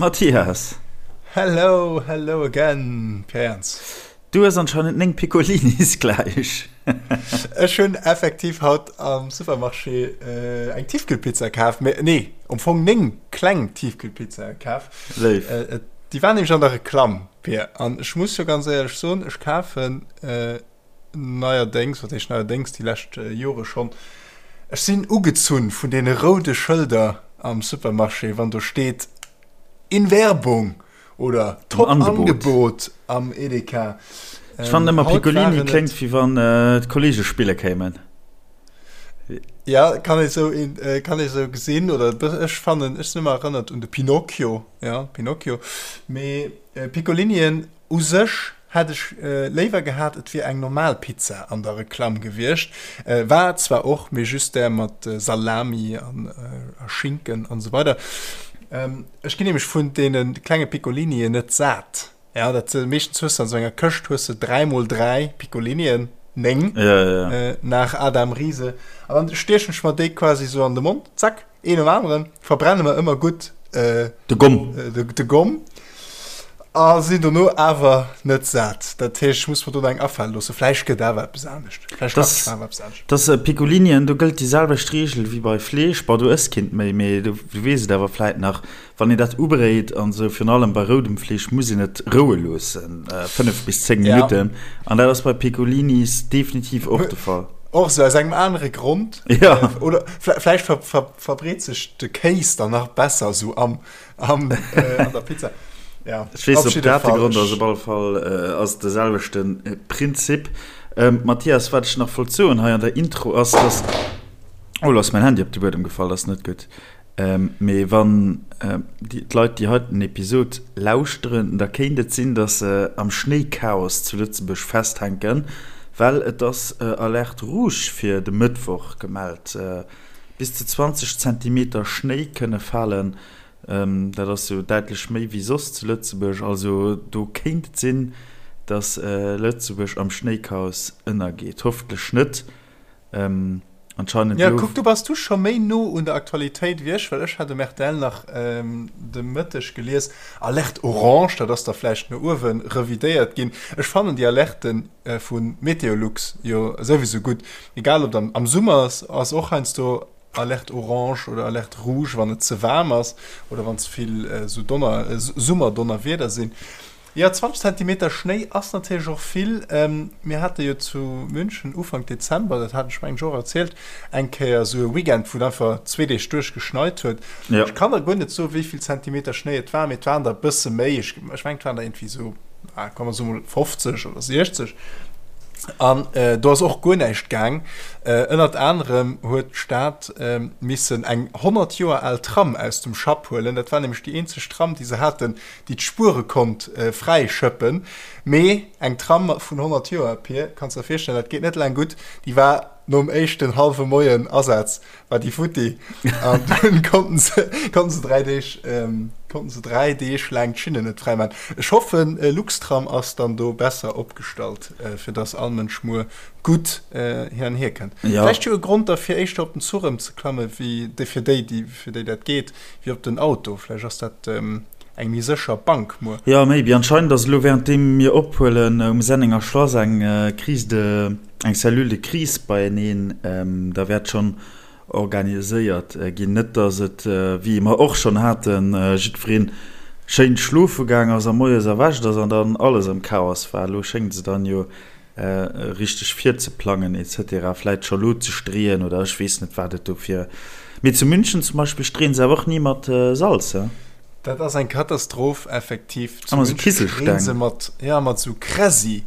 Mathias! Hello, hello again, Pierre Jans. Du hues anscheinend 9 Piccolinis gläich. Ech hunn effektiv haut am Supermarché eng Tiefkühlpizza kaf, mee nee, am Fong 9 kleng Tiefkühlpizzae kaf. Léif. Déi waren nämlech an der Reklamm, Pierre, an ech muss jo ganz éierlech soen, ech kafen neierdéngs, wat heescht neierdéngs, déi lescht Jore schonn, ech sinn ugezunn vun deene roude Schëlder am Supermarché, wann do steet In Werbung oder Top Angebot am Edeka. Ech fannen ëmmer Piccolini kléngt wéi wann d'Kollege spille kéimen. Ja, kann ee sou, kann ee sou gesinn oder ech fannen, ech sinn ëmmer erënnert un de Pinocchio, ja, Pinocchio. Mee Piccolinien U sech hätt ech léiwer gehat, et wier eng normal Pizza an der Reklamm gewiescht. War et zwar och, mee just där mat Salami a Schinken an esou weider. Ech ginn nämlech vun deene klenge Piccolinien net sat. Ja, dat meeschtens hues de an esou enger Këscht hues de 3 mol 3 Piccolinien, 9 nach Adam Riese, an dann stiechen ech mer déi quasi esou an de Mond, zack. Een nom aneren verbrenne mer ëmmer gutt de Gomm, de Gomm a sinn dono awer net sat. Dat heescht, ech muss mer do nach eng afale loossen. Vläicht gëtt awer eppes anescht. Vläicht kachen ech mer awer eppes anescht. Dass Piccolinien, do gëllt déi selwecht Reegel wéi bei Fleesch. Bon, du ëss keent méi, mee du weess et awer vläit nach, wann een dat ubréit an esou, virun allem bei roudem Fleesch, muss een et roue loossen, 5 bis 10 Minutten. An dat ass bei Piccolinis definitiv och de Fall. Och esou aus engem anere Grond. Ja. Oder vläicht ver, ver, verbreet sech de Kéis dann nach besser esou am, am, äh, an der Pizza. Ja, Ech weess op dat de Grond ass, op alle Fall äh, ass de selwechte Prinzip. Ähm, Mathias, wat ech nach wollt soen hei an der Intro ass, dass. Oh, lo ass mäin Handy op de Buedem gefall, dat ass net gutt. Mee wann d'Leit déi heiten Episod lauschteren, da kéint et sinn, datt se am Schnéichaos zu Lëtzebuerg festhänken, well et ass Alerte rouge fir de Mëttwoch gemellt. Bis zu 20 Zentimeter Schnéi kënne falen, dat ass jo däitlech méi wéi soss zu Lëtzebuerg. Also do kéint et sinn, datt Lëtzebuerg am Schnéichaos ënnergeet. Hoffentlech net. Anscheinend Ja, kuck, do bass du scho méi no un der Aktualitéit wéi ech, well ech hat um rtl nach de Mëtteg gelies, Alerte orange, dat ass da vläicht no uewe revidéiert ginn. Ech fannen déi Alerte vu Meteolux jo souwisou gutt, egal ob am Summer ass, ass och heiansdo Alerte orange oder Alerte rouge, wann et ze waarm ass oder wann ze vill esou Donner, Summerdonnerwieder sinn. Jo, 20 Zentimeter Schnéi ass natierlech och vill. Mir hate jo zu München Ufank Dezember, dat hat ech mengen ech och erzielt, eng Kéier esou e Weekend, wou et einfach zwee Deeg duerch geschneit huet. Ech kann der guer net soen, wéi vill Zentimeter Schnéi et waren, mee et waren der e bësse méi. Ech mengen, et waren der iergendwéi esou, komm mer soe mol 50 oder 60. An do ass och guer näischt gaang. Ënnert anerem huet d'Stad missen eng 100 Joer al Tram aus dem Schapp huelen. Dat war nämlech déi eenzeg Tram, déi se haten, déi d'Spuere konnt fräi schëppen, mee eng Tram vun 100 Joer, Pir, kanns der virstellen, dat geet net laang gutt, déi war nom éischten hallwe Moien Asaz war déi futti an dunn konnten se konnten se 3 Deeg konnten se 3 Deeg laang d'Schinnen net fräi maachen. Ech hoffen Luxtram ass dann do besser opgestallt, fir dass all Mënsch muer gutt hin an hier kënnt. Vläicht jo e Grond da fir éischter op den Zuch ëmzeklamme wéi fir déi, déi fir déi dat geet, wéi op den Auto. Vläicht ass dat eng méi sécher Bank muer. Jo, maybe. Anscheinend ass elo währenddeem mir ophuelen um Sennenger Schlass eng Crise de, eng Cellule de crise beieneen. Da wäert schonn organiséiert ginn. Net dass et, wéi mer och schonn haten, jiddwereen schéin schlofe gaang ass a moies erwächt ass an dann alles am Chaos war. Elo schéngt se dann jo richteg virzeplangen etc. Vläit scho lo ze streeën oder ech weess net wat et do fir. Mee zu München zum Beispill streeën se awer och ni mat Salz, he? Dat ass eng Katastroph effektiv. Zu München streeën se mat, ja, mat sou Kräsi.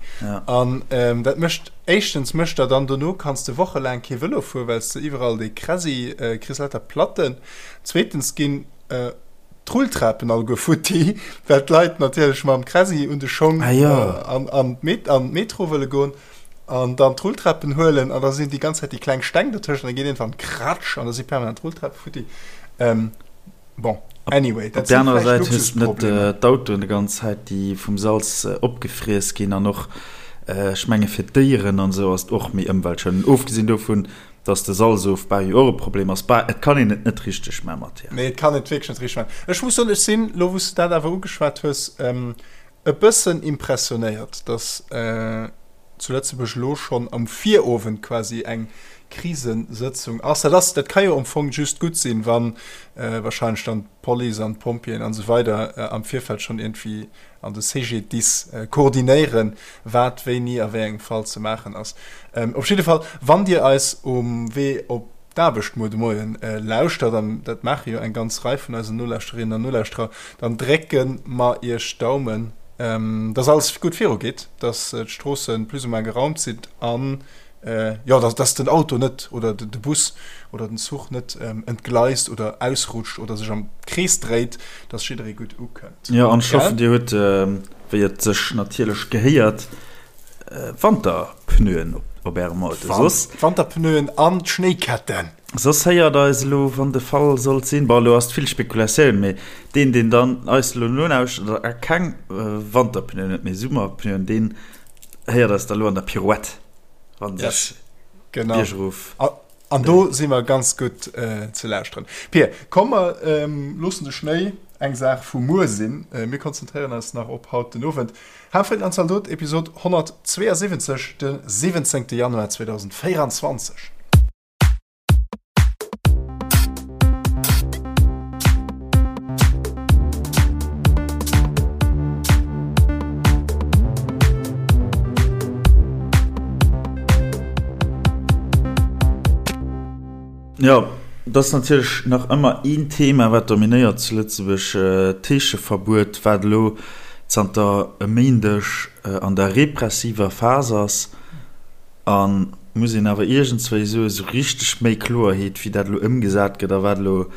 An dat mécht, éischtens mécht der dann dono kanns de wochelaang kee Vëlo fueren, well s de iwwerall dee Kräsi kriss, lauter Platten. Zweetens ginn d'Rulltrapen alleguer futti, well d'Leit natierlech mam Kräsi un de Schong an d'Metro wëlle goen an dann d'Rulltrapen huelen an da sinn déi ganz Zäit déi kleng Steng dertëschent, da geet iergendwann kratsch an da si permanent d'Rulltrape futti. Bon, anyway, dat si vläicht Luxusproblemer. Op der anerer Säit hues de net d'Autoen déi ganz Zäit, déi vum Salz opgefriess ginn an och, ech menge fir d'Déieren an esou ass et och méi ëmweltschonend. Ofgesinn dovun. Dass de Salzofbau jo och e Problem ass. Bah, et kann een et net richteg man, Mathias. Nee, et kann et wierklech net richteg man. Ech muss soen, ech sinn, lo wou s de dat awer ugeschwat hues, e bëssen impressionéiert, dass zu Lëtzebuerg elo schonn am Virowend quasi eng Krisesëtzung ass. Dat ass, dat ka jo am Fong just gutt sinn, wa wahrscheinlech dann d'Police an d'Pompjeeën an esou weider am Virfeld schonn iergendwéi an de CGDIS koordinéieren, wat wéini a wéi engem Fall ze maachen ass. Op jidde Fall, wann Dir eis um Wee op d'Aarbecht muer de Moien lauschtert, an dat maache jo eng ganz Rei vun eisen Nolauschterinnen an Nolauschterer, dann drécke mer Iech d'Daumen, dass alles gutt virugeet, dass d'Stroosse plus ou moins geraumt sinn an jo, dass, dass den Auto net oder de Bus oder den Zuch net entgleist oder ausrutscht oder sech am Krees dréit, dass jidderee gutt ukënnt. Jo, an ech hoffen, Dir hutt, wéi et sech natierlech gehéiert, Wanterpneuen op Ärem Auto. Soss. Wanterpneuen an d'Schnéiketten. Soss héiert eis elo, wann de Fall sollt sinn, bon, elo ass et vill Spekulatioun, mee deen, deen dann eis elo nolauschtert a keng Wanterpneuen huet, mee Summerpneuen, deen héiert eis da elo an der Pirouette. Wann sech genau. Biergrof. An do si mer ganz gutt äh, ze lauschteren. Pir, komm mer ähm, loossen de Schnéi eng Saach vu muer sinn. Äh, mir konzentréieren eis nach op haut den Owend. Hafritten an Zaldot, Episod 172, de 17. Januar 2024. Jo, et ass natierlech nach ëmmer een Thema, wat dominéiert zu Lëtzebuerg, d'Heescheverbuet, wat elo zanter e Méindeg an der repressiver Phas ass. A muss een awer iergendswéi soen, esou richteg méi Kloerheet, wéi dat elo ëmgesat gëtt a wat elo,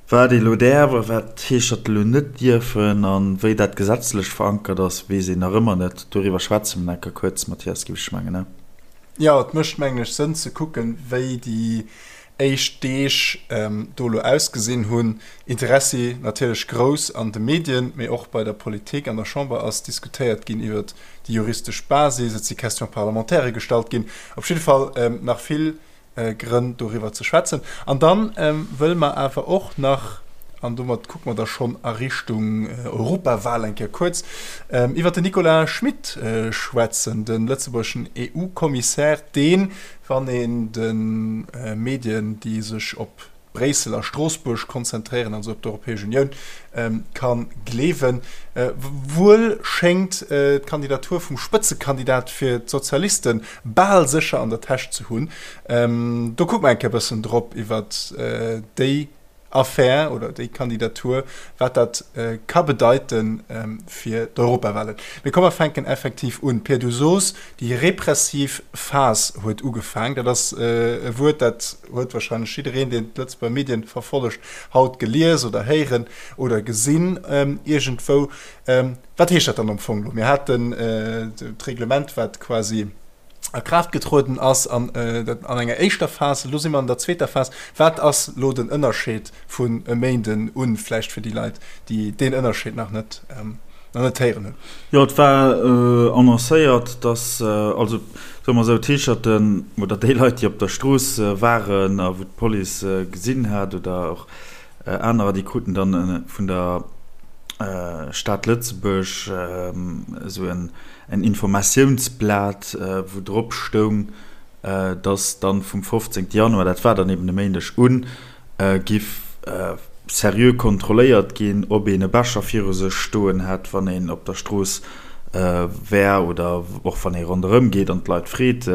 wat ee elo däerf a wat d'Heescherte elo net dierfen a wéi dat gesetzlech verankert ass, weess een nach ëmmer net. Doriwwer schwätze mer nach kuerz, Mathias, géif ech mengen, ne? Jo, et mécht, mengen ech, Sënn ze kucken, wéi déi éischt Deeg do elo ausgesinn hunn. Interessi natierlech grouss an de Medien, mee och bei der Politik. An der Chamber ass diskutéiert ginn iwwert déi juristesch Basis, et si Questions parlementaires gestallt ginn. Op jidde Fall nach vill Grënn doriwwer ze schwätzen. An da wëlle mer awer och nach, an domat kucke mer da schonn a Richtung Europawal eng Kéier kuerz, iwwert den Nicolas Schmit schwätzen, de lëtzebuergeschen EU-Kommissär, deen, Wann een de Medien, déi sech op Bréissel a Stroossbuerg konzentréieren, also op d'Europäesch Unioun, ka gleewen, wuel schéngt d'Kandidatur vum Spëtzekandidat fir d'Sozialiste bal sécher an der Täsch ze hunn. Do kucke mer eng Kéier e bëssen drop iwwer déi Affär oder déi Kandidatur, wat dat ka bedeite fir d'Europawahlen. Mee komm mer fänken effektiv un. Pir, du sos, déi repressiv Phas huet ugefaang. Dat ass e Wuert, dat huet wahrscheinlech jiddereen, deen d'Lëtzebuerger Medien verfollegt, haut gelies oder héieren oder gesinn iergendwou. Wat heescht dat dann am Fong elo? Mir haten d'Reglement, wat quasi a Kraaft getrueden ass an dat an enger éischter Phas. Elo si mer an der zweeter Phas. Wat ass elo den Ënnerscheed vun e Méinden un, vläicht fir déi Leit, déi deen Ënnerscheed nach net, nach net héieren hunn? Jo, et war annoncéiert, dass, also soe mer esou, d'Heescherten oder déi Leit, déi op der Strooss waren a wou d'Police gesinn hat oder och anerer, déi kruten dann vun der Stad Lëtzebuerg esou en en Informatiounsblat, wou drop stoung, dass dann vum 15 Januar, dat war dann eben e Méindeg, un, giff seriö kontrolléiert ginn, ob een e Becher viru sech stoen hätt, wann een op der Strooss wär oder och wann ee ronderëm geet an d'Leit freet.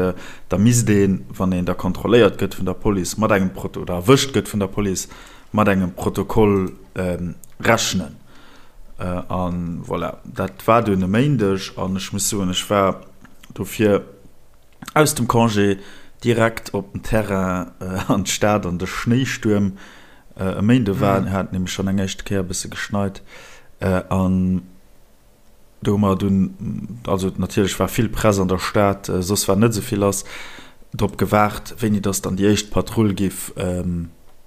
Da misst een, wann een da kontrolléiert gëtt vun der Police mat engem Proto oder erwëscht gëtt vun der Police, mat engem Protokoll rechnen. A voilà, dat war dunn e Méindeg an ech muss soen, ech war dofir aus dem Congé direkt op den Terrain an d'Stad an de Schnéistuerm. E Méinde war, hat nämlech schonn eng éischte Kéier e bësse geschneit an Do hu mer dunn, also natierlech war vill Press an der Stad, soss war net esou vill lass, drop gewaart, wéini dass dann déi éischt Patrull géif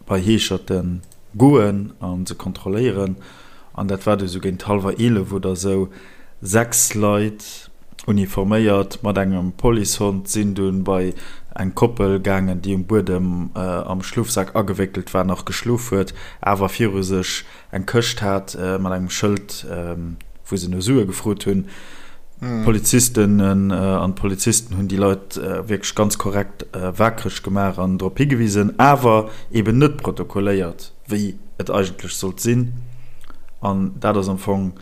bei Heescherte goen a se kontrolléieren. An dat war du sou géint hallwer 11 oder sou. 6 Leit. Uniforméiert mat engem Policehond sinn dunn bei eng Koppel gaangen, déi um Buedem am Schlofsak agewéckelt war, nach geschlof huet, awer viru sech eng Këscht hat mat engem Schëld, wou se no Sue gefrot hunn. D'Polizisten an d'Polizisten hunn déi Leit wierklech ganz korrekt waakreg gemaach an drop higewisen, awer eben net protokolléiert, wéi et eigentlech sollt sinn. An dat ass am Fong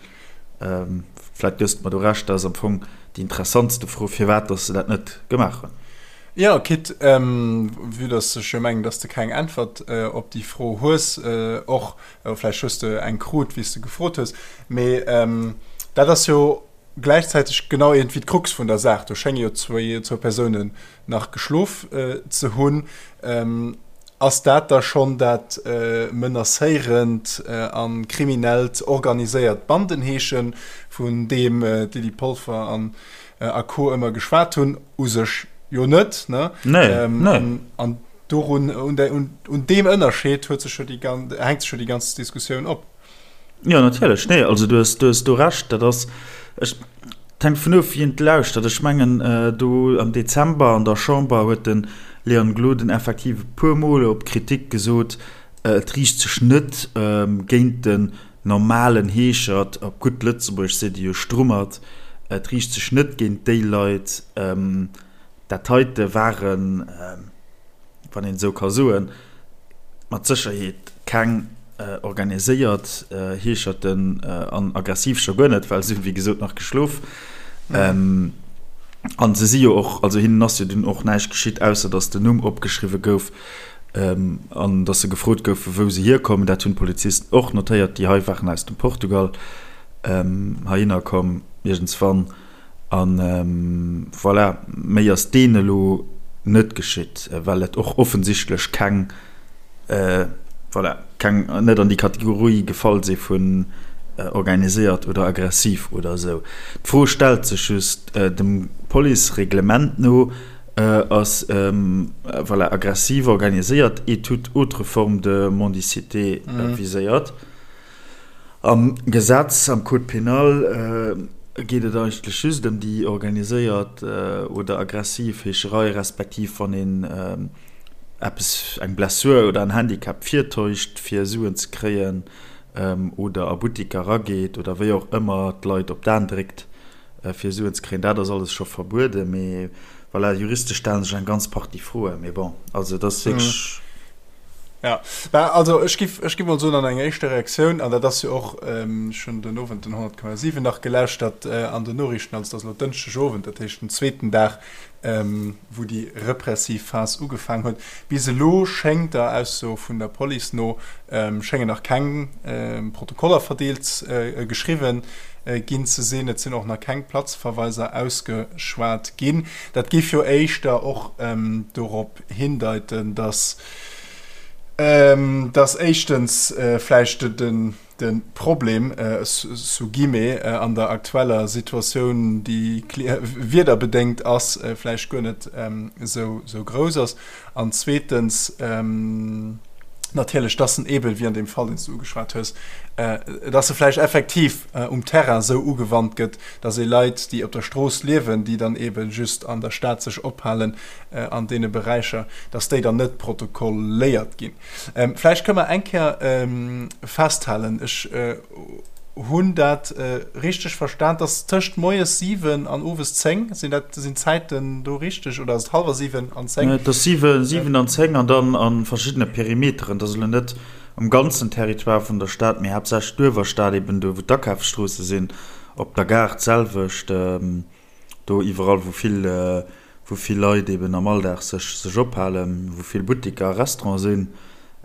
Vläit gëss de mer do Recht, dat ass am Fong déi interessantste Fro, firwat dass se dat net gemaach hunn. Jo, quitte, vue dass ech jo mengen, dass de keng Äntwert op déi Fro hues, och vläicht hues de eng krut, wéi s de gefrot hues, mee dat ass jo gläichzäiteg genau iergendwéi d'Krux vun der Saach. Do schénge jo zwou Persounen nach geschlof ze hunn. Ass dat da schonn dat menacéierend a kriminellt organiséiert Bandenheeschen, vun deem d'Lydie Polfer an a Co. Ëmmer geschwat hunn? U sech jo net, ne? Nee, nee. An dorun, un deem Ënnerscheed huet sech jo déi, hänkt sech jo déi ganz Diskussioun op. Jo, natierlech. Nee, also du hues, du hues do Recht. Dat ass, ech, et hänkt dovun of, wien et lauschtert. Ech mengen, do am Dezember an der Chamber huet de Leon Gloden effektiv e puermol op Kritik gesot, et riicht sech net géint den normalen Heeschert, op gutt Lëtzebuergesch seet e jo Strummert, et riicht sech net géint déi Leit. Dat heite waren, wann een esou ka soen, mat Sécherheet keng organiséiert Heescherten an aggressiv scho guer net, well se hunn, wéi gesot, nach geschlof. An se si jo och, also hinnen ass jo dunn och näischt geschitt, ausser datt den Numm opgeschriwwe gouf an datt se gefrot goufen, wou se hierkommen. Dat hunn d'Polizisten och notéiert, déi hei waren aus dem Portugal heihinner komm iergendswann. A voilà, méi ass deen elo net geschitt, well et och offensichtlech keng, voilà, keng, net an déi Kategorie gefall si vun organiséiert oder aggressiv oder esou. D'Fro stellt sech just, dem Policereglement no ass, voilà, aggressiv, organiséiert et toute autre forme de mendicité viséiert. Am Gesetz, am Code pénal, geet et eigentlech just ëm déi organiséiert oder aggressiv Heescherei, respektiv wann een eppes, eng Blessur oder en Handicap virtäuscht, fir Suen ze kréien, oder a Buttiker erageet oder wéi och ëmmer d'Leit op d'Aen dréckt, fir Suen ze kréien. Dat ass alles scho verbueden, mee voilà, juristesch stelle sech eng ganz Partie Froen. Mee bon, also et ass wierklech. Ja, bah, also ech giff, ech giff mol soen an enger éischter Reaktioun, an dat ass jo och, ech hunn den Owend den 100,7 nach gelauschtert an den Noriichten, also et ass elo Dënschdeg Owend, dat heescht den zweeten Dag, wou déi repressiv Phas ugefaang huet. Bis elo schéngt der Ausso vun der Police no, schéngen nach keng Protokoller verdeelt, geschriwwen ginn ze sinn. Et sinn och nach keng Platzverweiser ausgeschwat ginn. Dat géif jo éischter och dorop hindeiten, dass, dass éischtens vläicht de Problem, sous guillemets, an der aktueller Situatioun, déi wiederbedéngt ass, vläicht guer net esou grouss ass an zweetens natierlech, dass en eeben, wéi an deem Fall, deen s du ugeschwat hues, dass e vläicht effektiv um Terrain esou ugewannt gëtt, dass ee Leit, déi op der Strooss liewen, déi dann eebe just an der Stad sech ophalen, an deene Beräicher, dass déi dann net protokolléiert ginn. Vläicht kënne mer eng Kéier festhalen, ech hunn dat richteg verstan, dass tëscht moies 7 an owes 10, sinn dat, sinn d'Zäiten do richteg oder ass et hallwer 7 an 10? Et ass 7, 7 an 10 an dann a verschiddene Perimeteren. Dat ass elo net um ganzen Territoire vun der Stad, mee haaptsächlech d'Uewerstad, eben do wou d'Akafsstroosse sinn, op der Gare d'selwecht. Do iwwerall wou vill, wou vill Leit eben am Alldag sech, sech ophalen, wou vill Buttiker a Restaurante sinn,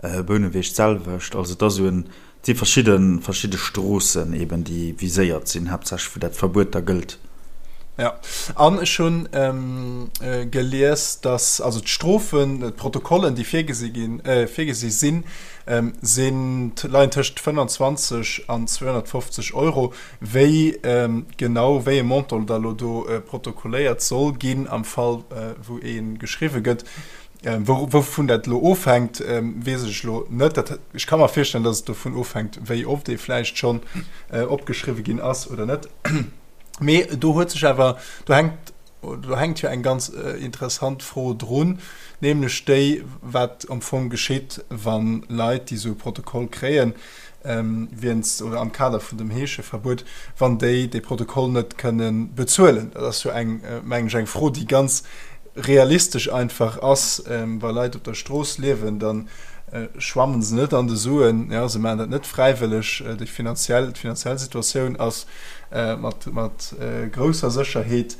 Bouneweg d'selwecht. Also et ass esou en, et si verschidde, verschidde Stroossen eben déi viséiert sinn, haaptsächlech wou dat Verbuet da gëllt. Jo, an ech hunn gelies, datt also d'Strofen, d'Protokollen déi virgesi ginn, virgesi sinn, sinn, leien tëscht 25 an 250 Euro. Wéi genau wéi e Montant da lo do protokolléiert soll ginn am Fall wou ee geschriwwe gëtt, wouvun dat elo ofhänkt, weess ech elo net. Dat, ech ka mer virstellen, datt et dovun ofhänkt, wéi oft ee vläicht schonn opgeschriwwe ginn ass oder net. Mee do huet sech awer, do hänkt, do hänkt jo eng ganz interessant Fro drun, nämlech déi, wat am Fong geschitt, wa Leit, déi esou e Protokoll kréien, wéinst oder am Kader vun dem Heescheverbuet, wann déi dee Protokoll net kënne bezuelen. Dat ass jo eng, mengen ech, eng Fro, déi ganz realistesch einfach ass. Wa Leit op der Strooss liewen, da schwammen se net an de Suen, jo, se maachen dat net fräiwëlleg. Déi finanziell, d'finanziell Situatioun ass mat, mat grousser Sécherheet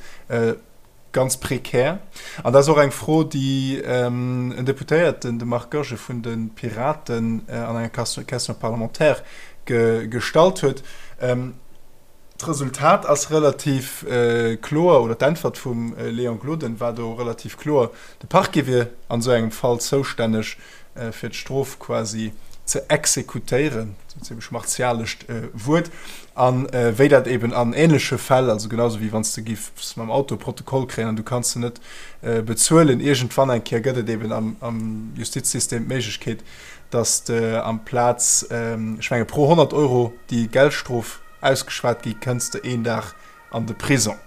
ganz prekär. An dat ass och eng Fro, déi en Deputéierten, de Marc Goergen vun de Piraten, an enger Question parlementaire gestallt huet. D'Resultat ass relativ kloer, oder d'Äntwert vum Léon Gloden war do relativ kloer, De Parquet wier an esou engem Fall zoustänneg, fir d'Strof quasi ze exekutéieren, en zimmlech martialescht Wuert, a wéi dat eben an änleche Fäll, also genau sou wéi wann s de giffs mam Auto e Protokoll kréien an du kanns en net bezuelen, iergendwann eng Kéier gëtt et eben am Justizsystem d'Méiglechkeet, datt de amplaz, ech menge pro 100 Euro, déi Geldstrof ausgeschwat gi, kënns de een Dag an de Prison.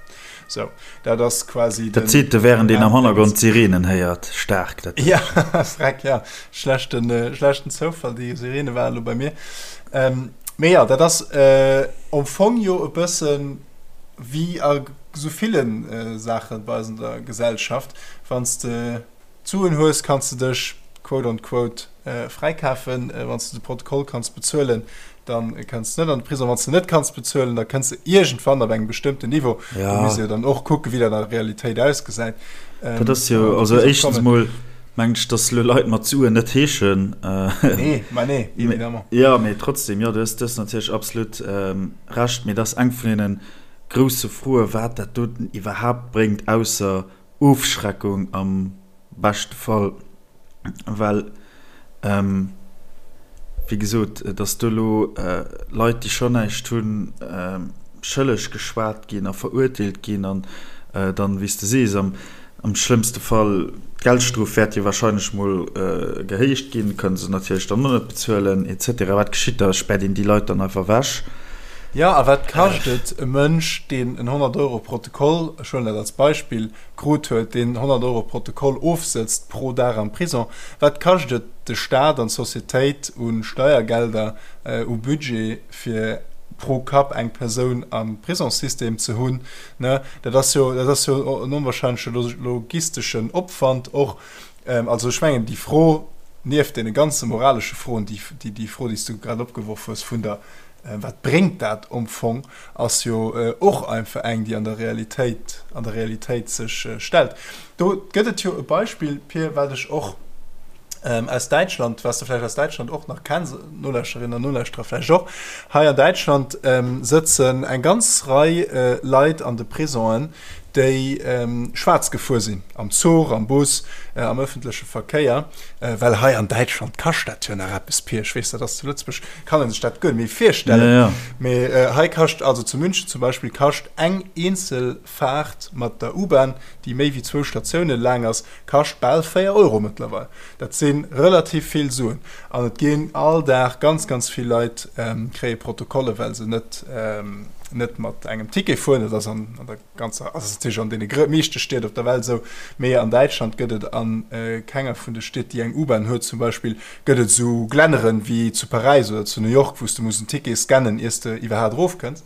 Sou, dat ass quasi den. Dat seet de während een am Hannergrond d'Sirenen héiert. Staark dat. Ja, freck, ja. Schlechten, schlechten Zoufall, déi Sirene waren elo bei mir. Mee jo, dat ass am Fong jo e bësse wéi a sou ville Saache bei eis an der Gesellschaft, wann s de D'Suen hues, kanns de dech quote on quote fräikafen. Wann s de de Protokoll kanns bezuelen, da kënns de net an de Prison. Wann s de net kanns bezuelen, da kënns de iergendwann op engem bestëmmten Niveau. Do misst ee jo dann och kucken, wéi dat an der Realitéit ausgesäit. Dat ass jo, also éischtens emol mengen ech, datt elo Leit mat Suen net heeschen. Nee, ma nee, évidemment. Jo, mee trotzdem, jo, du hues natierlech absolut Recht. Mee dat ass eng vun deene grousse Froen, wat dat doten iwwerhaapt bréngt, ausser Ofschreckung am beschte Fall, well wéi gesot, datt do elo Leit, déi schonn näischt hunn, schëlleg geschwat ginn a verurteelt ginn an dann, wéi s de sees, am schlëmmste Fall, d'Geldstrof wäert jo wahrscheinlech mol gehéicht ginn, kënne se natierlech dann och net bezuelen et cetera. Wat geschitt da? Späert een déi Leit dann einfach ewech? Jo, a wat kascht et e Mënsch, deen en 100 Euro Protokoll, ech huelen dat als Beispill, krut huet, deen 100 Euro Protokoll ofsëtzt pro Dag am Prison, wat kascht et de Staat an d'Societéit u Steiergelder, u Budget, fir pro Kapp eng Persoun am Prisongssystem ze hunn? Ne, dat ass jo, dat ass jo en onwahrscheinleche logisteschen Opwand och. Also ech mengen, déi Fro, nieft deene ganze moralesche Froen, déi, déi Fro, déi s du grad opgeworf hues vun der, Wat bréngt dat am Fong, ass jo och einfach eng, déi an der Realitéit, an der Realitéit sech stellt. Do gëtt et jo e Beispill, Pir, wat ech och aus Däitschland, wat s de vläicht aus Däitschland och nach kenns, Nolauschterinnen an Nolauschterer vläicht och, Hei an Däitschland sëtzen eng ganz Rei Leit an de Prisongen, déi schwaarz gefuer sinn, am Zuch, am Bus, am ëffentleche Verkéier, well hei an Däitschland kascht dat jo nach eppes, Pir. Ech weess, dat ass zu Lëtzebuerg, kann ee sech dat guer net méi virstellen, mee hei kascht, also zu München zum Beispill, kascht eng eenzel Faart mat der U-Bahn, déi méi wéi zwou Statioune laang ass, kascht bal 4 Euro mëttlerweil. Dat si relativ vill Suen. An et ginn all Dag ganz, ganz vill Leit kréie Protokolle, well se net, net mat engem Ticket fueren. Dat ass an der ganzer, also ass natierlech an deene meeschte Stied op der Welt esou, mee an Däitschland gëtt et a kenger vun de Stied, déi eng U-Bahn huet zum Beispill, gëtt et esou Glänneren wéi zu Paräis oder zu New York, wou s de muss en Ticket scannen, iers de iwwerhaat erofkënns.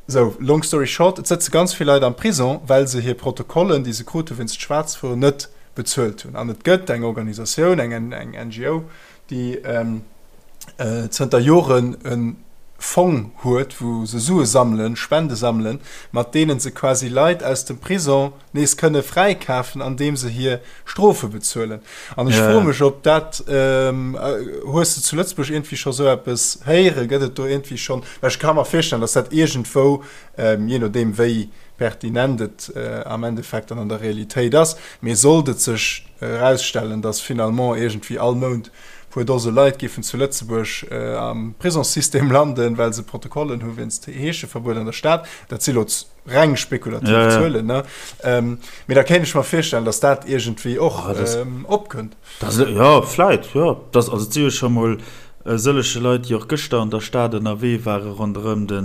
Sou, long story short, et sëtze ganz vill Leit am Prison, well se hir Protokollen, déi se krute wéinst Schwaarzfueren, net bezuelt hunn. An et gëtt eng Organisatioun, eng NGO, déi zënter Joren e Fong huet, wou se Sue sammelen, Spende sammelen, mat deene se quasi Leit aus dem Prison nees kënne fräikafen, andeem se hir Strofe bezuelen. An ech froe mech, ob dat, hues de zu Lëtzebuerg iergendwéi scho sou eppes héieren? Gëtt et do iergendwéi schonn, well ech ka mer virstellen, datt dat iergendwou, jee nodeem wéi pertinent et am Endeffekt dann an der Realitéit ass, mee sollt et sech erausstellen, datt finalement iergendwéi all Mount puer Dose Leit géifen zu Lëtzebuerg am Prisongssystem landen, well se Protokollen hu wéinst Heescheverbuet an der Stad, dat si lo reng spekulativ ja, ja. Zuelen, ne? Ähm, mee da kéint ech mer virstellen, datt dat iergendwéi och ah, das, ähm, opkënnt. Das, ja, vläit, ja. Das, also, et si jo scho mol. E sëllege Leit, déi och gëschter an der Stad ënnerwee ware ronderëm de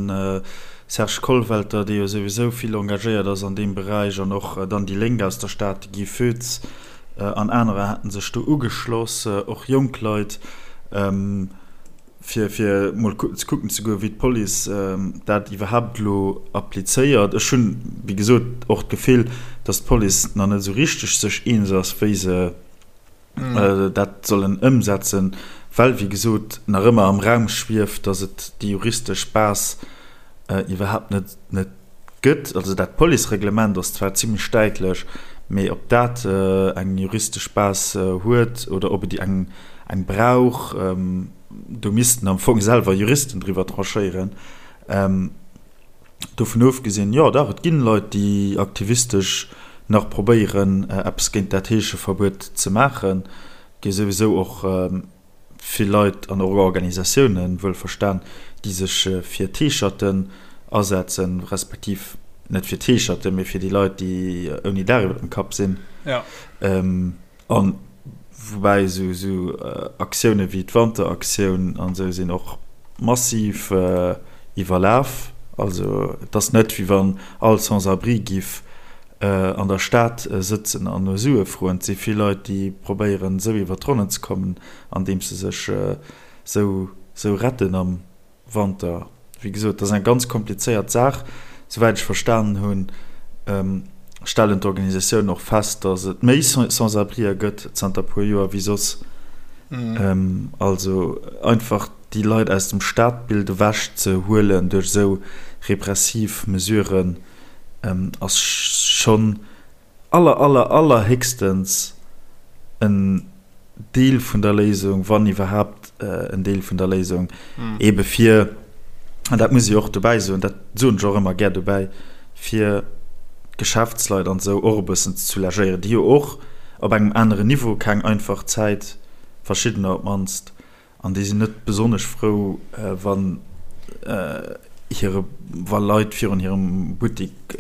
Serge Kollwelter, dee jo souwisou vill engagéiert ass an deem Beräich, an och dann déi Lénk aus der Stad, de Guy Foetz an anerer haten sech do ugeschloss, och jonk Leit, fir fir mol ze kucken ze goen, wéi d'Police dat iwwerhaapt elo applizéiert. Ech hunn, wéi gesot, och d'Gefill, datt d'Police nach net esou richteg sech eens ass, wéi se dat sollen ëmsetzen, well, wéi gesot, nach ëmmer am Raum schwieft, datt et déi juristesch Base iwwerhaapt net net gëtt. Also dat Policereglement ass zwar zimlech däitlech, mee ob dat eng juristesch Base huet oder ob et eng eng brauch, do missten am Fong selwer Juristen driwwer tranchéieren. Dovun ofgesinn, jo dach, et ginn Leit, déi aktivistesch nach probéieren, eppes géint dat Heescheverbuet ze maachen. Et gi souwisou och vill Leit an och Organisatiounen, wuelverstan, déi sech fir d'Heescherten asetzen, respektiv net fir d'Heescherten, mee fir déi Leit, déi ouni Daach iwwer dem Kapp sinn. An woubäi esou Aktioune wéi d'Wanteraktioun an esou sinn och massiv iwwerlaf. Also et ass net wéi wann all Sans-abri giff an der Stad sëtzen an no Sue froen. Et si vill Leit déi probéieren esou iwwer d'Ronnen ze kommen andeems se sech esou retten am Wanter. Wéi gesot, dat ass eng ganz komplizéiert Saach. Souwäit ech verstanen hunn, stellen d'Organisatiounen och fest, datt et méi Sans-abrië gëtt zanter e puer Joer wéi soss. Also einfach déi Leit aus dem Stadbild ewech ze huelen duerch esou repressiv Mesuren, ass schonn aller aller allerhéchstens en Deel vun der Léisung, wann iwwerhaapt en Deel vun der Léisung, ebe fir, an dat muss ech och dobäi soen, dat soen ech och ëmmer gär dobäi, fir d'Geschäftsleit an esou och e bëssen ze soulagéieren, déi jo och op engem aneren Niveau keng einfach Zäit, verschiddener op d'mannst, An déi sinn net besonnesch frou, wann hire, wa Leit virun hirem Buttik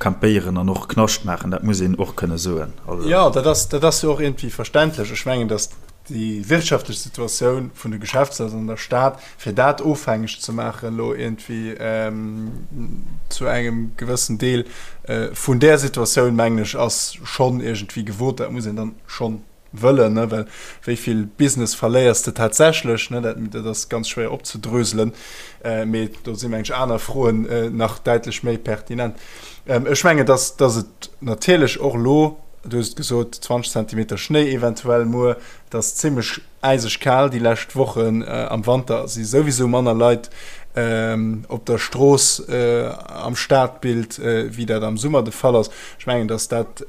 campéieren an och Knascht maachen. Dat muss een och kënne soen. Also. Jo, dat ass, dat ass jo och iergendwéi verständlech. Ech mengen, datt déi wirtschaftlech Situatioun vun de Geschäftsleit an der Stad, fir dat ofhängeg ze maachen elo iergendwéi zu engem gewëssen Deel vun där Situatioun, mengen ech, ass schonn iergendwéi gewot. Dat muss een dann schonn wëllen, ne, well wéi vill Business verléiers de tatsächlech, ne, dat, dat ass ganz schwéier opzedröselen, mee do si meng ech aner Froen nach däitlech méi pertinent. Ech mengen, dass, dass et natierlech och elo, du hues et gesot, 20 Zentimeter Schnéi eventuell muer, et ass zimmlech äiseg kal déi lescht Wochen, am Wanter si souwisou manner Leit op der Strooss am Stadbild, wéi dat am Summer de Fall ass. Ech mengen, dass dat,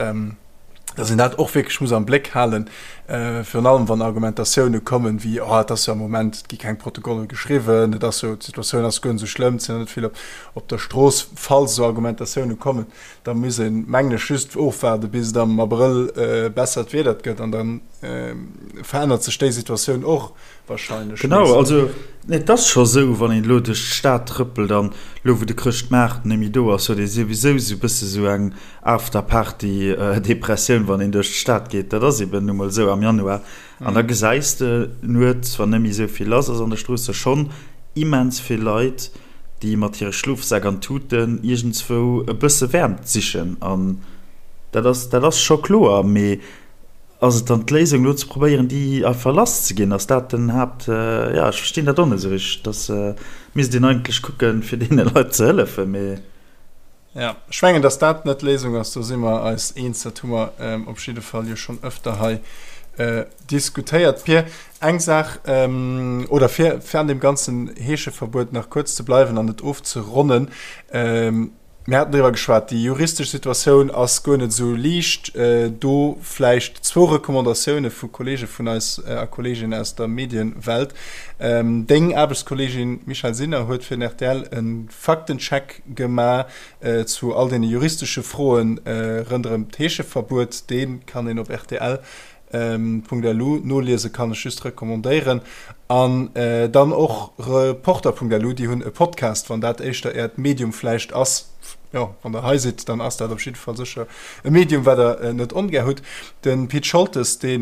dass een dat och wierklech muss am Bléck halen, virun allem wann Argumentatioune kommen wéi, oh et ass jo am Moment, et gi keng Protokolle geschriwwen, et ass jo, d'Situatioun ass guer net esou schlëmm, et sinn der net vill op der Strooss. Falls esou Argumentatioune kommen, da muss een, mengen ech, just ofwaarde bis et am Abrëll bessert Wieder gëtt an da verännert sech déi Situatioun och wahrscheinlech. Genau, also et ass scho sou, wann een elo duerch d'Stad trëppelt an elo wou de Chrëschtmaart net méi do ass, huet ee souwisou sou e bësse sou eng After-Party-Depressioun, wann een duerch d'Stad geet. Dat ass eben nu mol esou am Januar. An da gesäis de nuets, wann net méi esou vill lass ass an de Stroosse, schonn immens vill Leit, déi mat hire Schlofsäck an Tuten iergendswou e bësse Wäermt sichen. An dat ass, dat ass scho kloer. Mee ass et dann d'Léisung, elo ze probéieren, déi einfach lasszeginn? Ass dat den Haapt-, jo, ech verstinn dat och net esou richteg. Dass misst een eigentlech kucken, fir deene Leit ze hëllefen. Mee. Ja, ech mengen, dass dat net d'Léisung ass, do si mer eis eens. Dat hu mer op jidde Fall jo schonn ëfter hei diskutéiert. Pir, eng Saach, oder fir, fir an deem ganzen Heescheverbuet nach kuerz ze bleiwen an et ofzeronnen, Mir haten driwwer geschwat, déi juristesch Situatioun ass guer net esou liicht. Do vläicht zwou Recommandatioune vu Kolleege vun eis a Kolleeginnen aus der Medienwelt. Deng Aarbechtskolleegin Michèle Sinner huet fir den rtl e Faktencheck gema zu all deene juristesche Froen rënderëm d'Heescheverbuet. Dee kann een op rtl. .lu noliese kann ech just recommandéieren. An dann och Reporter.lu, déi hunn e Podcast, wann dat éischter äert Medium vläicht ass. Jo, wann der hei sidd, dann ass dat op jidde Fall sécher e Medium, wat der net ongär hutt. De Pit Scholtes, dee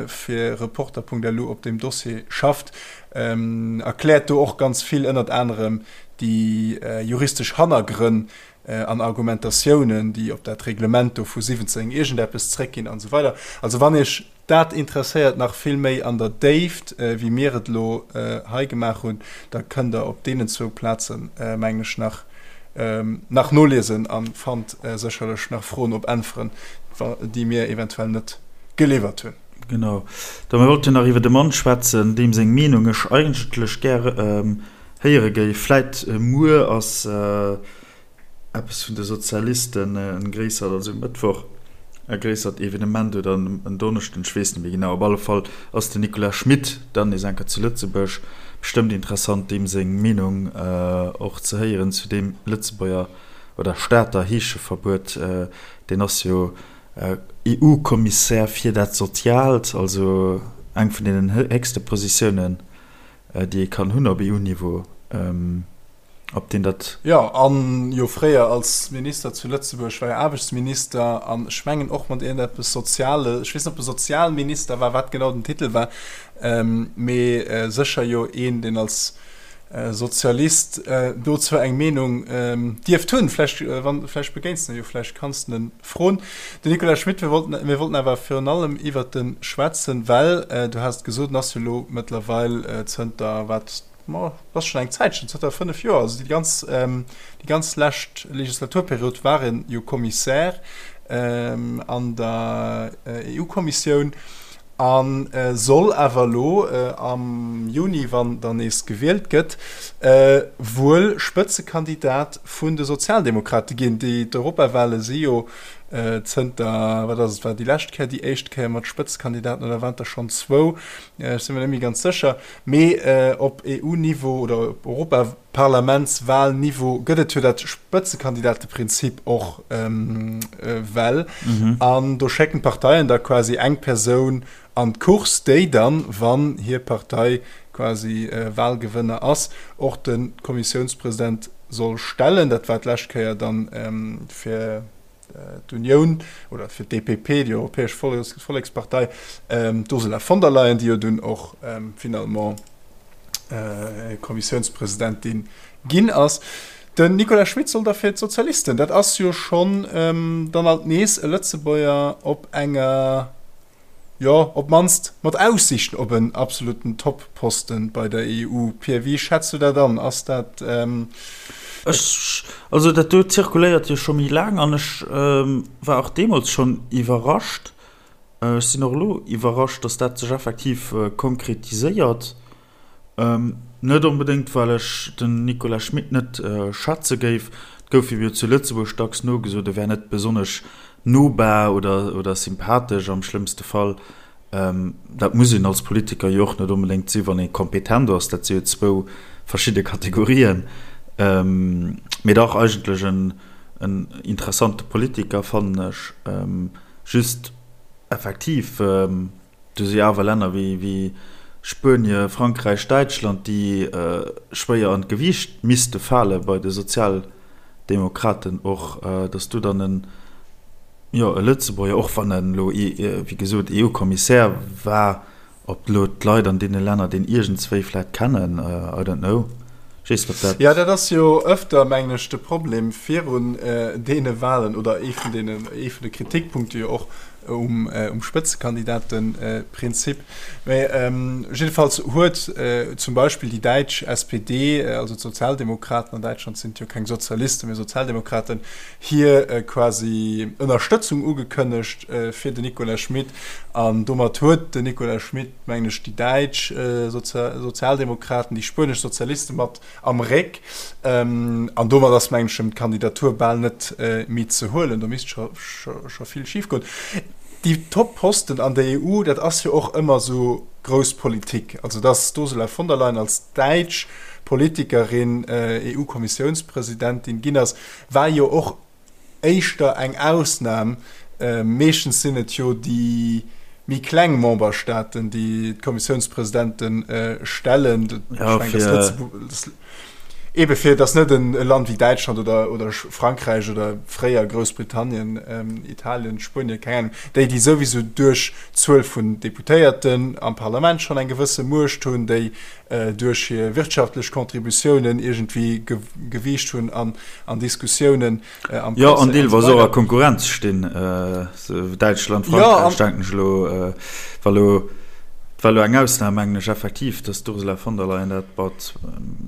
fir Reporter.lu op deem Dossier schafft, erkläert do och ganz vill, ënnert anerem déi juristesch Hannergrënn an Argumentatiounen, déi op dat Reglement do vu 17 iergendeppes zréckginn an esou weider. Also wann Iech dat interesséiert nach vill méi an der Déift, wéi mir et elo hei gemaach hunn, da kënnt Der op deenen zwou Plazen, mengen ech, nach nach noliesen a fannt sécherlech nach Froen op Äntweren, déi mir eventuell net geliwwert hunn. Genau. Da mir wollten nach iwwer e Mann schwätzen, deem seng Meenung ech eigentlech gär héiere géif. Vläit muer ass eppes vun de Sozialisten en gréissert, also um Mëttwoch e gréissert Evenement oder en Donneschden, ech weess net méi genau. Op alle Fall ass den Nicolas Schmit dann nees eng Kéier zu Lëtzebuerg. Bestëmmt interessant, deem seng Meenung och ze héieren zu deem Lëtzebuerger oder Stater Heescheverbuet. Deen ass jo EU-Kommissär fir dat Soziaalt, also eng vun deenen héchste Positiounen, déi ee kann hunn op EU-Niveau. Ob deen dat. Jo, an jo fréier als Minister zu Lëtzebuerg war jo Aarbechtsminister an ech mengen och mat iergendeppes Soziales, ech weess net ob e Sozialminister war, wat genau den Titel war, mee sécher jo een, deen als Sozialist dozou eng Meenung dierft hunn. Vläicht, wann, vläicht begéins de e jo, vläicht kanns de en froen. Den Nicolas Schmit, mir wollten, mir wollten awer virun allem iwwert e schwätzen, well, du has et gesot, en ass jo elo mëttlerweil zënter wat, Ma dat ass schonn eng Zäitchen, zënter 5 Joer, also déi ganz, déi ganz lescht Legislaturperiod war en jo Kommissär an der EU-Kommissioun a soll awer elo am Juni, wann dann nees gewielt gëtt, wuel Spëtzekandidat vun de Sozialdemokrate ginn. Déi d'Europawale si jo zënter, wat ass et, war déi lescht Kéier déi éischt Kéier mat Spëtzekandidaten oder waren et der schonn zwou? Ech si mer net méi ganz sécher. Mee op EU-Niveau oder op Europaparlamentswahlniveau gëtt et jo dat Spëtzekandidateprinzip och well. An do schécken d'Parteien da quasi eng Persoun an d'Course, déi dann, wann hir Partei quasi Wahlgewënner ass, och de Kommissiounspresident soll stellen. Dat war d'lescht Kéier dann fir d'Unioun oder fir d'EPP, déi Europäesch Vollekspartei, d'Ursula von der Leyen, déi jo dunn och finalement Kommissiounspresidentin ginn ass. Den Nicolas Schmit soll da fir d'Sozialisten, dat ass jo schonn dann alt nees e Lëtzebuerger op enger, Jo, op d'mannst mat Aussiichten op en absoluten Top-Posten bei der EU. Pir, wéi schätz du dat an? Ass dat. Ech, also dat do zirkuléiert jo scho méi laang an ech war och deemools schonn iwwerrascht. Ech sinn och elo iwwerrascht, datt dat sech effektiv konkretiséiert. Net onbedéngt, well ech den Nicolas Schmit net schätze géif. Et gouf him jo zu Lëtzebuerg dacks nogesot, e wär net besonnesch nobar oder sympathesch am schlëmmste Fall. Dat muss een als Politiker jo och net onbedéngt sinn, wann ee kompetent ass. Dat si jo zwou verschidde Kategorien. Mee dach eigentlech en interessante Politiker, fannen ech. Just effektiv. Do si awer Länner wéi Spuenie, Frankräich, Däitschland, déi schwéier an d'Gewiicht misste fale bei de Sozialdemokraten och, datt do dann en, jo, e Lëtzebuerger, och wann en elo, wéi gesot, EU-Kommissär war, ob elo d'Leit an deene Länner deen iergendswéi vläicht kennen, I don't know. Ech weess net, ob dat. Jo, dat ass jo ëfter, mengen ech, de Problem virun deene Wahlen oder ee vun deenen, ee vun de Kritikpunkte jo och, um Spëtzekandidatenprinzip. Mä jiddefalls huet zum Beispill déi däitsch SPD, also d'Sozialdemokraten, an Däitschland sinn et jo keng Sozialisten, mä Sozialdemokraten, hir quasi Ënnerstëtzung ugekënnegt fir den Nicolas Schmit. An domat huet den Nicolas Schmit, mengen ech, déi däitsch Sozialdemokraten, déi spuenesch Sozialiste mat am Réck. An domat ass, mengen ech, em d'Kandidatur bal net méi ze huelen. Do misst scho vill schif goen. Déi Top-Posten an der EU, dat ass jo och ëmmer esou grouss Politik. Also datt d'Ursula von der Leyen als däitsch Politikerin EU-Kommissiounspresidentin ginn ass, war jo och éischter eng Ausnam. Meeschtens sinn et jo déi. méi kleng Memberstaaten, déi d'Kommissiounspresidente stellen. Ja, fir Ebe fir datt net e Land wéi Däitschland oder, oder Frankräich oder fréier Groussbritannien, Italien, Spuenien, keng Ahnung, déi, déi souwisou duerch d'Zuel vun Deputéierten am Parlament schonn eng gewësse Muecht hunn, déi duerch hir wirtschaftlech Contributiounen iergendwéi Gewiicht hunn an an Diskussiounen am Jo, an deelweis och a Konkurrenz stinn, Däitschland, Frankräich, denken ech elo, war elo, war elo eng Ausnam, mengen ech, effektiv, datt d'Ursula von der Leyen dat mat.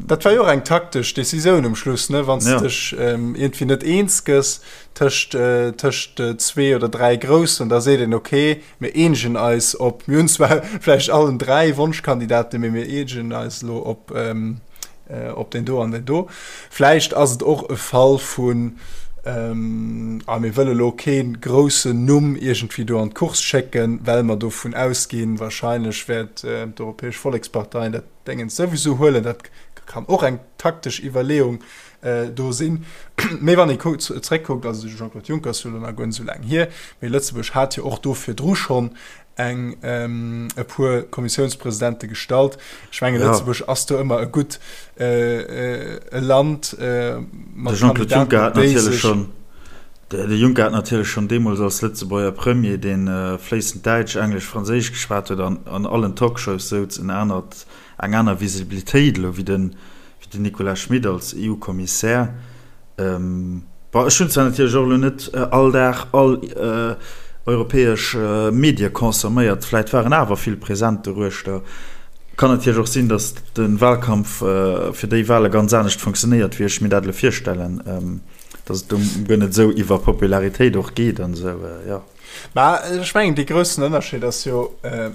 Dat war jo och eng taktesch Decisioun um Schluss, ne, wann s de dech iergendwéi net eens gëss tëscht, tëscht zwee oder dräi Groussen, da seet een, okay, mir eenegen eis op, mir hunn zwar vläicht allen dräi Wonschkandidaten, mee mir eenegen eis elo op, op deen do an deen do. Vläicht ass et och e Fall vun, ah mir wëlle lo kee groussen Numm iergendwéi do an d'Course schécken, well mer dovun ausginn, wahrscheinlech wäert d'Europäesch Vollekspartei dat Déngens souwisou huelen. Dat kann och eng taktesch Iwwerleeung do sinn. Mee wann ee zréckkuckt, also de Jean-Claude Juncker ass jo elo nach guer net esou laang hier, mee Lëtzebuerg hat jo och do virdru schonn eng e puer Kommissiounspresidente gestallt. Ech menge Lëtzebuerg ass do ëmmer e gutt e Land mat De Jean-Claude Juncker hat natierlech schonn, de Juncker hat natierlech schonn deemools als Lëtzebuerger Premier, dee fléissend Däitsch, Englesch, Franséisch geschwat huet an an allen Talkshows souz, en anert, eng aner Visibilitéit elo wéi den, wéi den Nicolas Schmit als EU-Kommissär. Bon, ech hunn zwar natierlech och elo net all Dag all europäesch Medie consomméiert, vläit waren awer vill present doruechter. Kann natierlech och sinn, datt de Wahlkampf fir déi Wahle ganz anescht funktionéiert, wéi ech mir dat elo virstellen, datt et do guer net esou iwwer Popularitéit och geet an esou, jo. Mä ech mengen, dee groussen Ënnerscheed ass jo,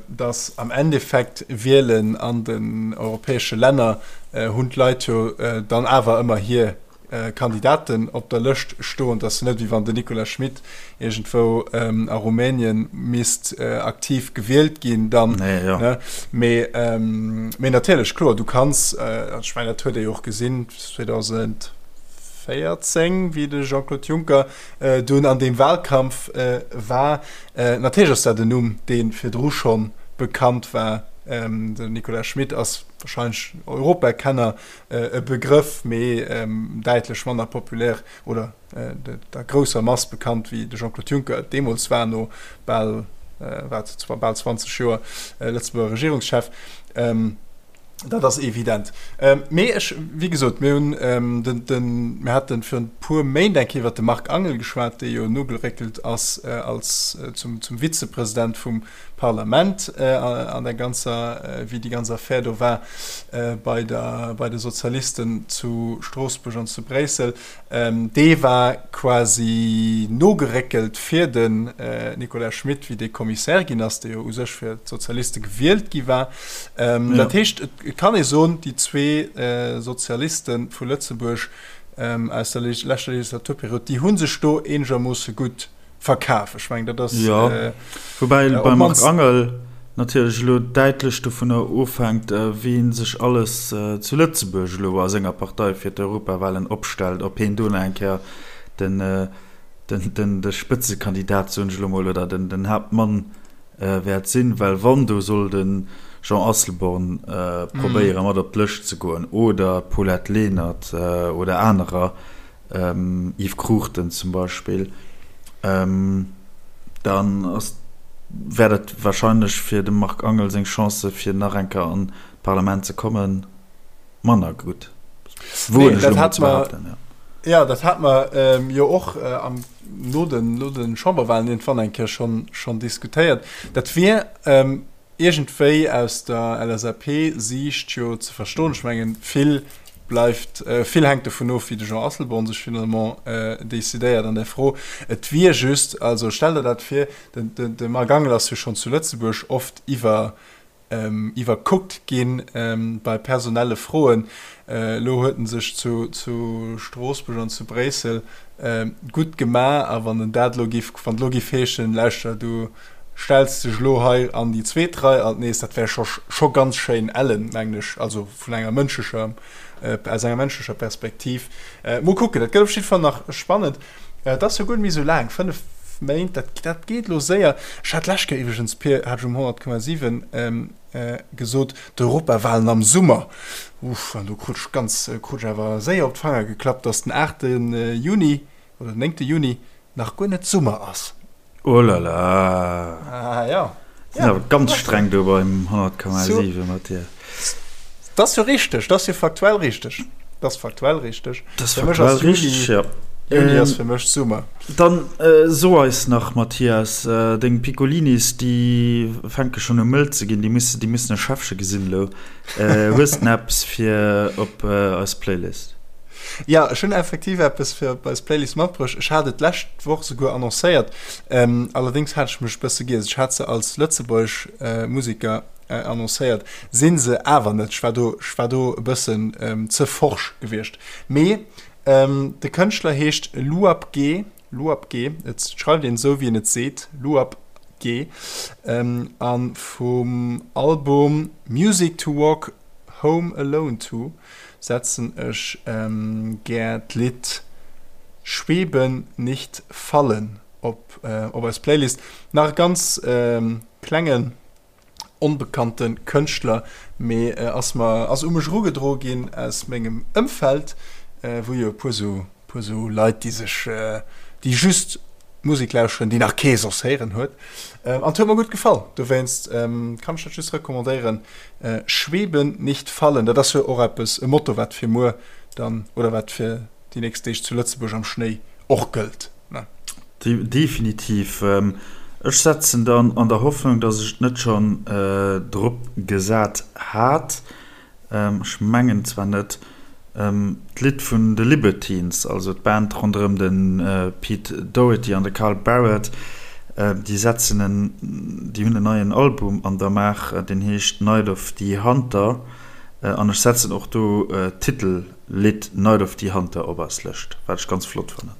datt am Endeffekt Wielen an den europäesche Länner hunn d'Leit jo dann awer ëmmer hir Kandidaten op der Lëscht stoen. Et ass jo net, wéi wann den Nicolas Schmit iergendwou a Rumänien misst aktiv gewielt ginn dann. Mee natierlech, kloer, du kanns, ech mengen, dat huet ee jo och gesinn 2014, wéi de Jean-Claude Juncker dunn an deem Wahlkampf war. Natierlech ass dat en Numm, dee virdru scho bekannt war. Den Nicolas Schmit ass wahrscheinlech Europakenner e Begrëff, mee däitlech manner populär oder der grousser Mass bekannt, wéi de Jean-Claude Juncker et deemools war, no bal, wat, bal 20 Joer Lëtzebuerger Regierungschef. Dat ass evident. Mee ech, wéi gesot, mir hunn den, den, mir haten virun e puer Méint eng Kéier iwwert de Marc Angel geschwat, dee jo nogeréckelt ass als zum, zum Vizepresident vum Parlament an der ganzer, wéi déi ganz Affär do war bei der, bei de Sozialisten zu Stroossbuerg an zu Bréissel. Dee war quasi nogeréckelt fir den Nicolas Schmit, wéi dee Kommissär ginn ass, dee jo u sech fir d'Sozialiste gewielt gi war. Dat heescht, et kann ee soen, déi zwee Sozialiste vu Lëtzebuerg aus der leschter Legislaturperiod, déi hu sech do eenegermoosse gutt verkaf. Ech mengen, dat ass. Jo, woubäi beim Marc Angel natierlech elo däitlech dovunner ofhänkt, wien sech alles zu Lëtzebuerg elo a senger Partei fir d'Europawahlen opstellt, ob hien do nach eng Kéier den, den, de Spëtzekandidat, soen ech elo mol, oder den, den Haaptmann wäert sinn. Well wann do soll de Jean Asselborn probéiere mat op d'Lëscht ze goen oder d'Paulette Lenert oder anerer, Yves Cruchten zum Beispill, dann ass, wär dat wahrscheinlech fir dem Marc Angel seng Chancë fir nach eng Kéier an d'Parlament ze kommen, manner gutt. Woen ech elo mol ze behaapten, jo. Jo, dat hate mer jo och am, no den, no de Chamberwahlen iergendwann eng Kéier schonn, schonn diskutéiert. Dat wier iergendwéi aus der LSAP-Siicht jo ze verstoen. Ech mengen, vill bleift, vill hänkt dovun of, wéi de Jean Asselborn sech finalement decidéiert an där Fro. Et wier just, also stell der dat vir, de Marc Angel ass jo schonn zu Lëtzebuerg oft iwwer, iwwerkuckt gi bei personelle Froen. Elo huet en sech zu Stroossbuerg an zu Bréissel gutt gemaach a wann en dat elo giff, wann et elo giff heeschen, lauschter du stells dech elo hei an déi zweet Rei alt nees, dat wär scho scho ganz schéin ellen, mengen ech, also vun enger mënschlecher, aus enger mënschlecher Perspektiv. Mol kucken, dat gëtt op jidde Fall nach spannend. Et ass jo guer net méi esou laang, 5. 5 Méint, dat, dat geet elo séier. Ech hat d'lescht Kéier iwwregens, Pir, hat ech um 100,7 gesot, d'Europawahlen am Summer. Uff, an do krut ech ganz, krut ech awer séier op d'Fanger geklappt, dass den 8. Juni oder den 9. Juni nach guer net Summer ass. Oh la la. Ah ja. Sinn awer ganz streng do beim 100,7 mat dir. Dat ass jo richteg, dat ass jo faktuell richteg. Dat ass faktuell richteg. Dat ass faktuell richteg, ja. Juni ass fir mech Summer. Dann so eis nach, Mathias, deng Piccolinis, déi fänke schonn u mëll ze ginn, déi mussen, déi mussen e Schäffche gesinn elo. Hues de eppes fir op eis Playlist? Jo, ech hunn effektiv eppes fir op eis Playlist matbruecht. Ech hat et d'lescht Woch souguer annoncéiert, allerdéngs hat ech mech e bësse giess. Ech hat se als lëtzebuergesch Museker annoncéiert, si se awer net. Ech war do, ech war do e bëssen ze forsch gewiescht. Mee de Kënschtler heescht Luap G, Luap G, et schreift een esou wéi een et seet, Luap G, a vum Album Music to Walk Home Alone To setzen ech gär d'Lidd Schweben nicht fallen op op eis Playlist. Nach e ganz klengen onbekannte Kënschtler, mee ass mer ass u mech erugedroe ginn aus mengem Ëmfeld, wou jo e puer sou puer sou Leit déi sech déi just Musek lauschteren déi nach kee soss héieren huet. An et huet mer gutt gefall, dowéinst kann ech dat just recommandéieren. Schweben, nicht fallen, dat ass jo och eppes, e Motto wat fir muer dann oder wat fir déi nächst Deeg zu Lëtzebuerg am Schnéi och gëllt, ne? Definitiv. Ech setzen dann an der Hoffnung, dass ech et net schonn drop gesat hat, Ech mengen zwar net. D'Lidd vun de Libertines, also d'Band ronderëm de Pete Doherty an de Carl Barât, déi setzen en, déi hunn en neien Album an der Maach, deen heescht Night of the Hunter an ech setzen och do d'Titel. Lidd Night of the Hunter op eis Lëscht, wat ech ganz flott fannen.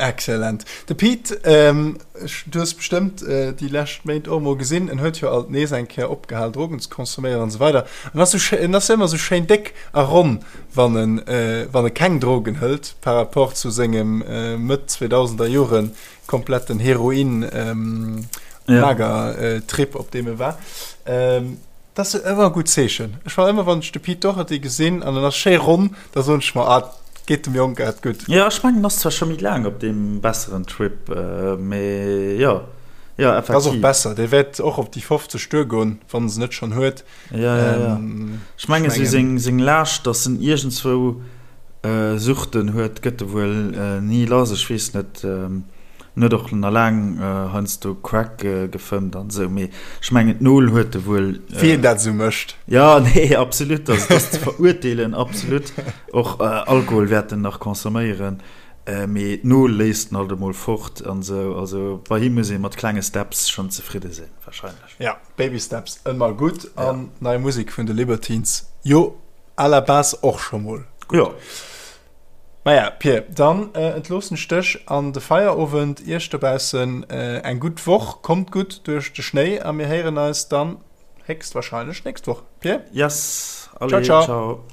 Excellent. De Pete, du hues bestëmmt déi lescht Méint och emol gesinn, en huet jo alt nees eng Kéier opgehal Drogen ze consomméieren an esou weider. En ass esou, en ass jo ëmmer esou schéin déck a ronn, wann en, wann e keng Drogen hëlt, par rapport zu sengem Mëtt 2000er Jore kompletten Heroin Mager Trip, op deem e war. Dat ass ëmmer e gutt Zeechen. Ech war ëmmer, wann ech de Pete Doherty gesinn an en ass schéi ronn, da soen ech mer, ah, et geet dem Jong grad gutt. Jo, ech mengen, en ass zwar scho méi laang op deem besseren Trip, mee jo, jo, effektiv. Ass och besser, dee wäert och op déi 50 duergoen, wann en se net schonn huet. Jo, jo, jo. Ech mengen, esou seng, seng Laascht, datt en iergendzwou Suchten huet, gëtt e wuel ni lass. Ech weess net. En huet och na laang heiansdo Crack gefëmmt an esou, mee ech mengen d'Nol huet e wuel. Wien dat esou mécht. Jo, nee, absolut, also et ass ze verurteelen, absolut. Och Alkohol wäert en nach consomméieren, mee d'Nol léisst en alt emol fort an esou. Also bei him muss ee mat klenge Steps schonn zefridde sinn, warscheinlech. Ja, Baby Steps ëmmer gutt an nei Musek vun de Libertines jo à la base och scho mol gutt. Jo. Maja, Pir, dann entloossen ech dech an de Feierowend. Iech dobaussen eng gutt Woch, kommt gutt duerch de Schnéi a mir héieren eis dann héchstwahrscheinlech nächst Woch. Pir? Yes, allez, ciao, ciao.